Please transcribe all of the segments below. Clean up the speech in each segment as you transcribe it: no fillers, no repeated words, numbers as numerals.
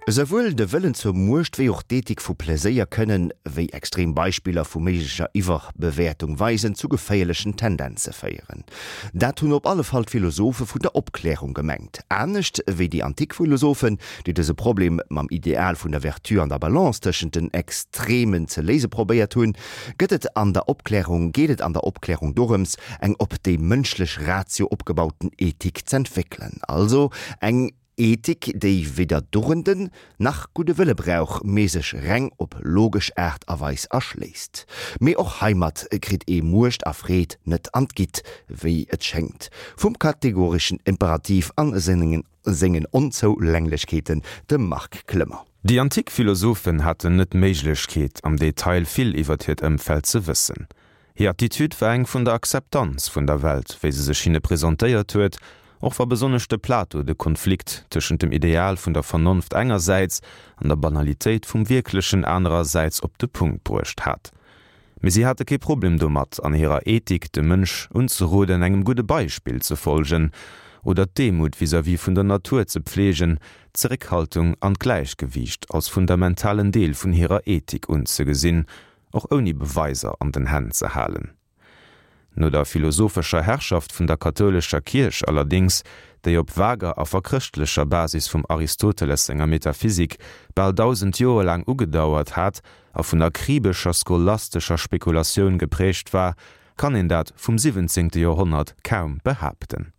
Esouwuel de Wëllen zur Muecht wéi och d'Ethik vu Pleséier kënnen, wéi extrem Beispiller vu méiglecher Iwwerbewäertung weisen, zu geféierlechen Tendenze féieren. Dat hunn op alle Fall d'Philosophe vun der Opklärung gemengt. Anescht wéi déi antik Philosophen, déi dëse Problem mam Ideal vun der Vertu an der Balance tëschent den Extremen ze léise probéiert hunn, gëtt et an der Opklärung geet et an der Opklärung dorëms, eng op déi mënschlech Ratio opgebauten Ethik z'entwéckelen, also eng Ethik, déi weder Dugenden nach gudde Wëlle brauch, mee sech reng op logesch Aart a Weis erschléisst. Mee och heimat kritt ee Muecht a Freed net an d'Gitt, wéi et schéngt, vum kategoreschen Imperativ a sengen Onzoulänglechkeeten, dem Marc Clement. Déi antik Philosophen haten net d'Méiglechkeet, am Detail vill iwwert hiert Ëmfeld ze wëssen. Hir Attitude war eng vun der Akzeptanz vun der Welt, wéi se sech hinne presentéiert huet, och wa besonnesch de Plato de Konflikt tëschent dem Ideal vun der Vernonft engersäits an der Banalitéit vum Wierklechen anerersäits op de Punkt bruecht hat. Mee si hate kee Problem domat, an hirer Ethik dem Mënsch unzeroden, engem gudde Beispill ze folgen oder d'Demut vis-à-vis vun der Natur ze pfleegen, d'Zeréckhaltung an d'Gläichgewiicht als fundamentalen Deel vun hirer Ethik unzegesinn, och ouni Beweiser an den Hänn ze halen. No der philosophescher Herrschaft vun der kathoulescher Kierch allerdéngs, déi op vager a verchrëschtlecher Basis vum Aristoteles senger Metaphysik bal 1000 Joer laang ugedauert hat a vun akribescher scholastescher Spekulatioun geprägt war, kann een dat vum siwwenzéngte Joerhonnert kaum behaapten.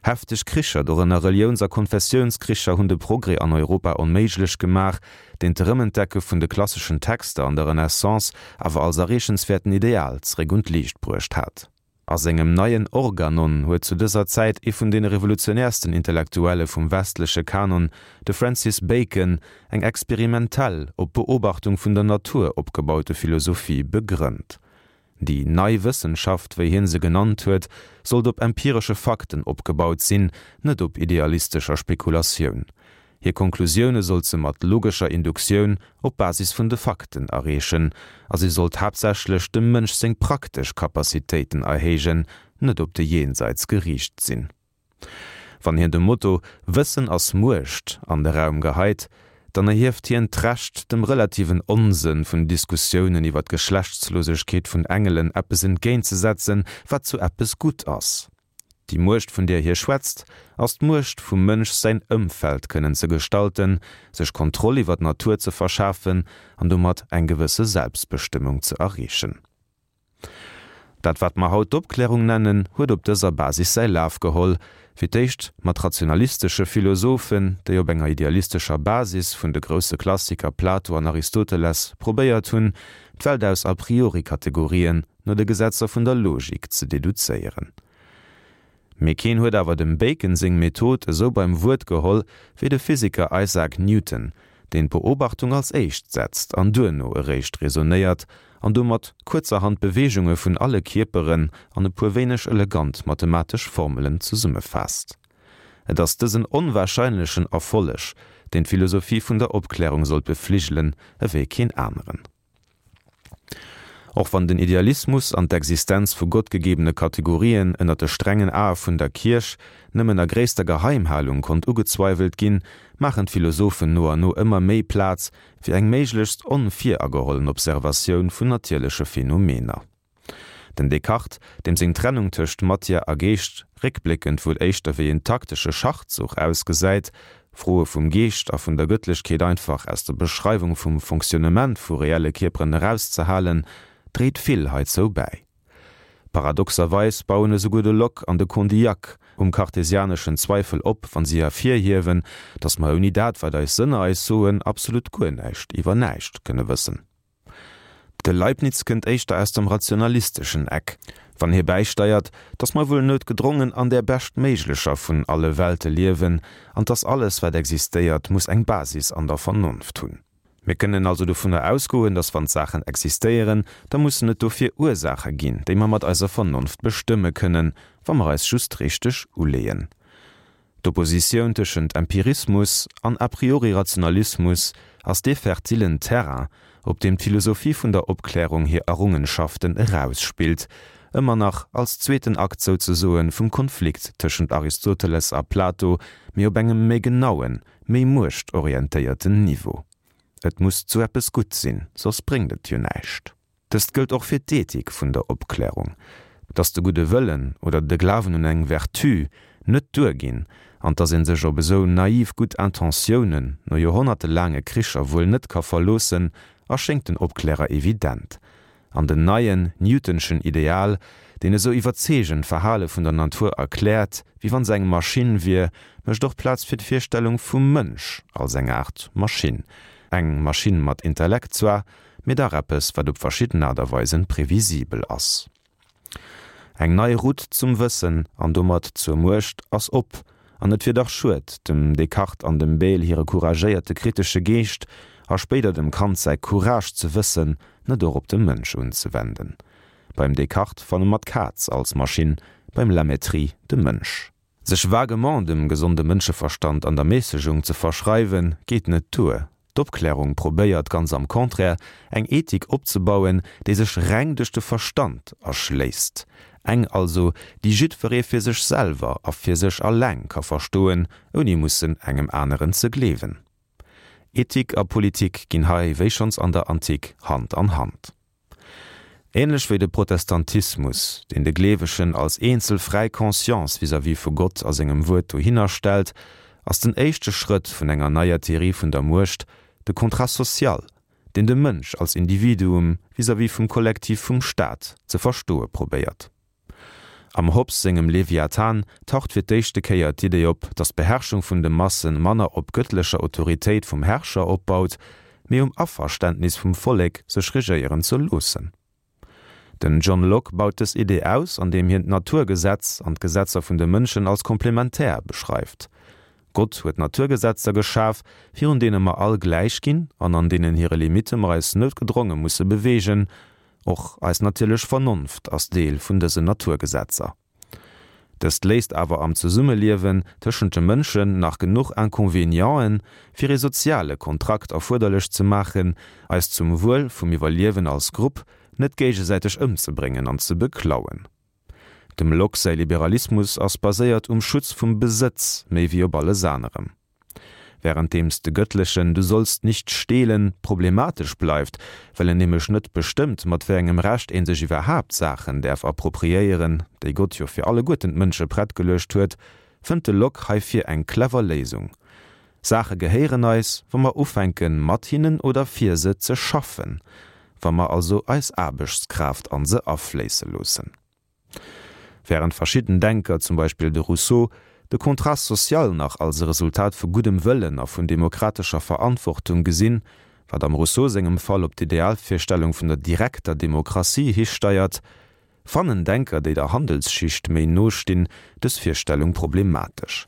Hefteg Kricher, dorënner Reliouns a Konfessiounskricher, hunn de Progrès an Europa onméiglech gemaach, deen d'Erëmentdecke vun de klasseschen Texter an der Renaissance awer als erreechenswäerten Ideal zeréck un d'Liicht bruecht hat. A sengem neien Organon huet zu dëser Zäit ee vun deene revolutionäersten Intellektuelle vum westleche Kanon, de Francis Bacon, eng experimentell, op Beobachtung vun der Natur opgebaute Philosophie begrënnt. Déi nei Wëssenschaft, wéi hien se genannt huet, sollt op empiresche Fakten opgebaut sinn, net op idealistescher Spekulatioun. Hir Konklusioune sollt se mat logescher Induktioun op Basis vun de Fakten erreechen, a si sollt haaptsächlech dem Mënsch seng praktesch Capacitéiten erhéijen, net op de Jenseits geriicht sinn. Wann hien de Motto Wëssen ass Muecht an de Raum geheit, dann erhieft hien d'Recht, dem relativen Onsënn vun Diskussiounen iwwer d'Geschlechtslosegkeet vun Engelen eppes entgéintzesetzen, wat zu eppes gutt ass. Déi Muecht, vun där hie schwätzt, ass d'Muecht vum Mënsch säin Ëmfeld kënnen ze gestalten, sech Kontroll iwwer d'Natur ze verschafen an domat eng gewësse Selbstbestëmmung ze erreechen. Dat wat mer haut d'Opklärung nennen, huet op dëser Basis säi Laf geholl, fir d'éischt mat rationalistesche Philosophen, déi op enger idealistescher Basis vun de grousse Klassiker Plato an Aristoteles probéiert hunn, d'Welt aus a priori Kategorien no de Gesetzer vun der Logik ze deduzéieren. Mee keen huet awer dem Bacon seng Method esou beim Wuert geholl wéi de Physiker Isaac Newton, deen d'Beobachtung als éischt setzt an duerno eréischt raisonnéiert an domat kuerzerhand d'Beweegunge vun alle Kierperen an e puer wéineg elegant mathematesch Formelen zesummefaasst. Et ass dësen onwahrscheinlechen Erfolleg, deen d'Philosophie vun der Opklärung sollt befligelen ewéi keen aneren. Och wann den Idealismus an d'Existenz vu gottgegebene Kategorien ënner de strengen Ae vun der Kierch nëmmen a gréisster Geheimhalung konnt ugezweiwelt ginn, maachen d'Philosophen no an no ëmmer méi Plaz fir eng méiglechst onviragehollen Observatioun vun natierleche Phänomener. Den Descartes, deem seng Trennung tëscht Matière a Geescht réckbléckend wuel éischter wéi en taktesche Schachzuch ausgesäit, Froe vum Geescht a vun der Gëttlechkeet einfach aus der Beschreiwung vum Fonctionnement vu reelle Kierperen erauszehalen, dréit vill heizou bäi. Paradoxerweis bauen esouguer de Locke an de Condillac um kartesianeschen Zweifel op, wann si ervirhiewen, datt mer ouni dat, wat eis Sënner eis soen, absolut guer näischt iwwer näischt kënne wëssen. De Leibniz kënnt éischter aus dem rationalisteschen Eck, wann hie bäisteiert, datt mer wuel noutgedrongen an där beschtméiglecher vun alle Welte liewen an datt alles, wat existéiert, muss eng Basis an der Vernonft hunn. Mir kënnen also dovunner ausgoen, datt wann d'Saachen existéieren, da mussen et dofir Ursaache ginn, déi mer mat eiser Vernonft bestëmme kënnen, wa mer eis just richteg uleeën. D'Oppositioun tëschent Empirismus an a priori Rationalismus ass dee fertilen Terrain, op deem d'Philosophie vun der Opklärung hir Errungenschaften erausspillt. Ëmmer nach als zweeten Akt souzesoen vum Konflikt tëschent Aristoteles a Plato, mee op engem méi genauen, méi muechtorientéierten Niveau. Et muss zu eppes gutt sinn, soss bréngt et jo näischt. Dëst gëllt och fir d'Ethik vun der Opklärung, dass de gudde Wëllen oder de Glawen un eng Vertu net duerginn an dass ee sech op esou naiv gutt Intentiounen no joerhonnertelaange Kricher wuel net ka verloossen, erschéngt den Opklärer evident. An den neien Newtonschen Ideal, deen esou iwwerzeegend d'Verhale vun der Natur erkläert, wéi wann se eng Maschinn wier, mécht och Plaz fir d'Virstellung vum Mënsch als eng Aart Maschinn. Eng Maschinn mat Intellekt zwar, mee dach eppes, wat op verschidden Aart a Weisen previsibel ass. Eng nei Route zum Wëssen an domat zur Muecht ass op, an et wier dach schued, dem Descartes an dem Bayle hire couragéierte kritesche Geescht a spéider dem Kant säi Courage ze wëssen net och op de Mënsch unzewenden. Beim Descartes fanne mer d'Kaz als Maschinn, beim La Mettrie de Mënsch. Sech vaguement dem gesonde Mënscheverstand an der Mässegung ze verschreiwen, geet net duer. D'Opklärung probéiert ganz am Contraire, eng Ethik opzebauen, déi sech reng duerch de Verstand erschléisst. Eng also, déi jiddweree fir sech selwer a fir sech alleng ka verstoen, ouni mussen engem aneren ze gleewen. Ethik a Politik ginn hei, wéi schonns an der Antik, Hand an Hand. Ähnlech wéi de Protestantismus, deen de Gleewegen als eenzel fräi Conscience vis-à-vis vu Gott a sengem Wuert dohinner stellt, ass den éischte Schrëtt vun enger neier Theorie vun der Muecht de Contrat social, deen de Mënsch als Individuum vis-à-vis vum Kollektiv vum Staat ze verstoe probéiert. Am Hobbes sengem Leviathan taucht fir d'éischte Kéier d'Idee op, datt d'Beherrschung vun de Masse manner op gëttlecher Autoritéit vum Herrscher opbaut, mee um Averständnis vum Vollek, sech regéieren ze loossen. Den John Locke baut dës Idee aus, andeem hien d'Naturgesetz an d'Gesetzer vun de Mënschen als komplementär beschreift. Gott huet Naturgesetzer geschaf, virun deene mer all gläich ginn an an deenen hire Limitte mer eis noutgedronge musse beweegen, Och eis natierlech Vernonft ass Deel vun dësen Naturgesetzer. Dëst léisst awer am Zesummeliewen tëschent de Mënschen nach genuch Inconvénienten, fir ee soziale Kontrakt erfuerderlech ze maachen, eis zum Wuel vum Iwwerliewen als Grupp net géigesäiteg ëmzebréngen an ze beklauen. Dem Locke säi Liberalismus ass baséiert um Schutz vum Besëtz méi wéi op alles anerem. Wärenddeems de gëttlechen Du sollst nicht stehlen problematesch bleift, well en nämlech net bestëmmt, mat wéi engem Recht een sech iwwerhaapt Saachen däerf appropriéieren, déi Gott jo fir alleguerten d'Mënsche prett geluecht huet, fënnt de Locke heifir eng clever Léisung, Saache gehéieren eis, wa mer ufänken, mat hinnen oder fir se ze schaffen, wa mer also eis Aarbechtskraaft an se afléisse loossen. Wärend verschidden Denker, zum Beispill de Rousseau, de Contrat social nach als e Resultat vu guddem Wëllen a vun demokratescher Verantwortung gesinn, wat am Rousseau sengem Fall op d'Idealvirstellung vun der direkter Demokratie histeiert, fannen Denker, déi der Handelsschicht méi no stinn, dës Virstellung problematesch.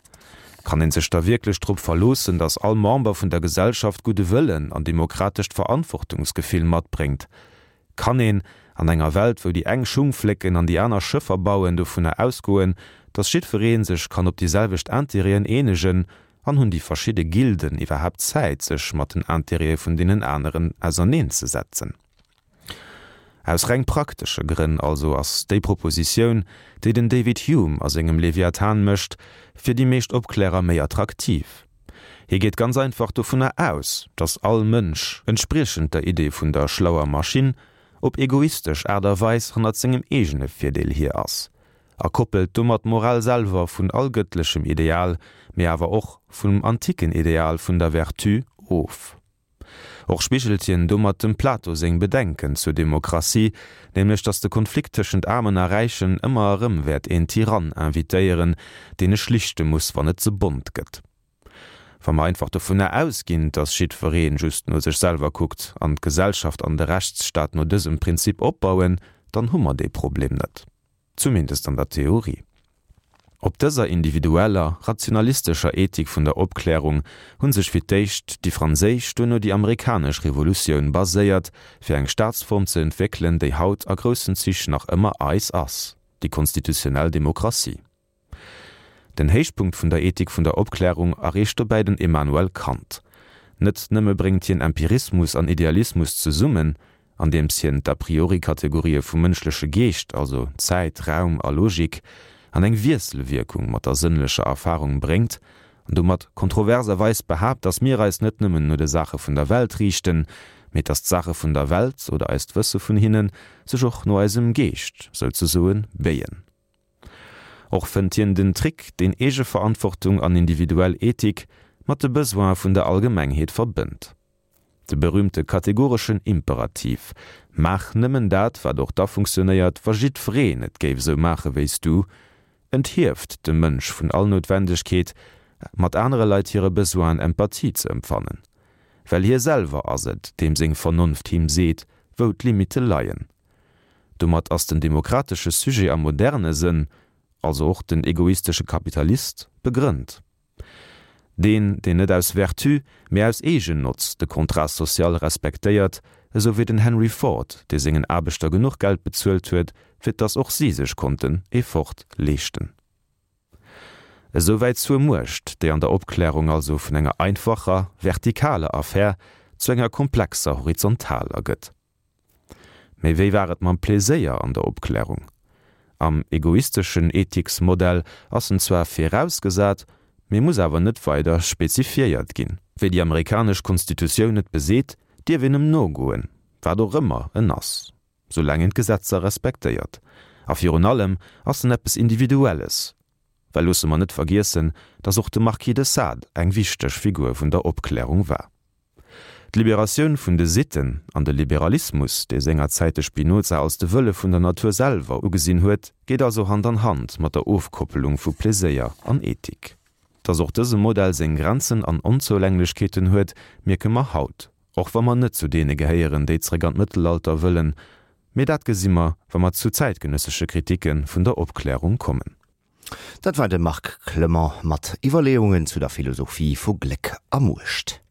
Kann een sech da wierklech drop verloossen, datt all Member vun der Gesellschaft gudde Wëllen an demokratescht Verantwortungsgefill matbréngt? Kann een, an enger Welt, wou déi eng Schung flécken an déi aner Schëffer bauen, dovunner ausgoen, datt jiddweree sech kann op déi selwecht Intérêten eenegen? An hunn déi verschidde Gilden iwwerhaapt Zäit, sech mat den Intérêtë vun deenen aneren auserneenzesetzen? Aus reng praktesche Grënn also ass déi Propositioun, déi den David Hume a sengem Leviathan mécht, fir déi meescht Opklärer méi attraktiv. Hie geet ganz einfach dovunner aus, datt all Mënsch, entspriechend der Idee vun der schlauer Maschinn, op egoistesch Aart a Weis hannert sengem eegene Virdeel hier ass, a koppelt domat d'Moral selwer vun all gëttlechem Ideal, mee awer och vum antiken Ideal vun der Vertu of. Och spigelt hien domat dem Plato seng Bedenken zur Demokratie, nämlech datt de Konflikt tëschent Aarmen a Räichen ëmmer erëm wäert een Tyrann invitéieren, deen e schlichte muss, wann et ze bont gëtt. Wa mer einfach dovunner ausginn, datt jiddweree just no sech selwer kuckt an d'Gesellschaft an de Rechtsstaat no dësem Prinzip opbauen, dann hu mer dee Problem net. Zumindest an der Theorie. Op dëser individueller, rationalistescher Ethik vun der Opklärung hu sech fir d'éischt déi franséisch, duerno déi amerikanesch Revolutioun baséiert, fir eng Staatsform ze entwéckelen, déi haut a groussen Zich nach ëmmer eis ass, déi konstitutionnell Demokratie. Den Héichpunkt vun der Ethik vun der Opklärung erreecht dobäi den Immanuel Kant. Net nëmme bréngt hien Empirismus an Idealismus zesummen. Andeems hien d'A-priori-Kategorië vum mënschleche Geescht, also Zäit, Raum a Logik, an eng Wiesselwierkung mat der sënnlecher Erfarung bréngt an domat kontroverserweis behaapt, datt mir eis net nëmmen no de Saache vun der Welt riichten, mee datt d'Saache vun der Welt, oder eist Wësse vun hinnen, sech och no eisem Geescht, souzesoen, béien. Och fënnt hien den Trick, deen Eegeverantwortung an individuell Ethik mat de Besoine vun der Allgemengheet verbënnt. De berühmte kategoreschen Imperativ, Maach nëmmen dat, wat och da funktionéiert, wa jiddwereen et géif esou maache wéi s du, enthieft de Mënsch vun all Noutwendegkeet, mat anere Leit hire Besoinen Empathie ze empfannen. Well hie selwer ass et, deem seng Vernonft him seet, wou d'Limitte leien. Domat ass den demokratesche Sujet am moderne Sënn, also och den egoistesche Kapitalist, begrënnt. Deen, deen net aus Vertu, mee aus Eegennotz de Contrat social respektéiert, esou wéi den Henry Ford, dee sengen Aarbechter genuch Geld bezuelt huet, fir dass och si sech konnten ee Ford leeschten. Esouwäit zur Muecht, déi an der Opklärung also vun enger einfacher, vertikaler Affär zu enger komplexer horizontaler gëtt. Mee wéi war et mam Pleséier an der Opklärung? Am egoisteschen Ethiksmodell ass en zwar virausgesat, mee muss awer net weider spezifiéiert ginn. Wéi déi amerikanesch Konstitutioun et beseet, dierf een em nogoen, wat och ëmmer en ass, soulaang een d'Gesetzer respektéiert. A virun allem ass en eppes Individuelles, well loosse mer net vergiessen, datt och de Marquis de Sade eng wichteg Figur vun der Opklärung war. D'Liberatioun vun de Sitten an de Liberalismus, dee sengerzäit de Spinoza als de Wëlle vun der Natur selwer ugesinn huet, geet also Hand an Hand mat der Ofkoppelung vu Pleséier an Ethik. Datt och dëse Modell seng Grenzen an Onzoulänglechkeeten huet, mierke mer haut, och wa mer net zu deene gehéieren, déi zréck an d'Mëttelalter wëllen. Mee dat gesi mer, wa mer zu zäitgenëssesche Kritike vun der Opklärung kommen. Dat war de Marc Clement mat Iwwerleeungen zu der Philosophie vu Gléck a Muecht.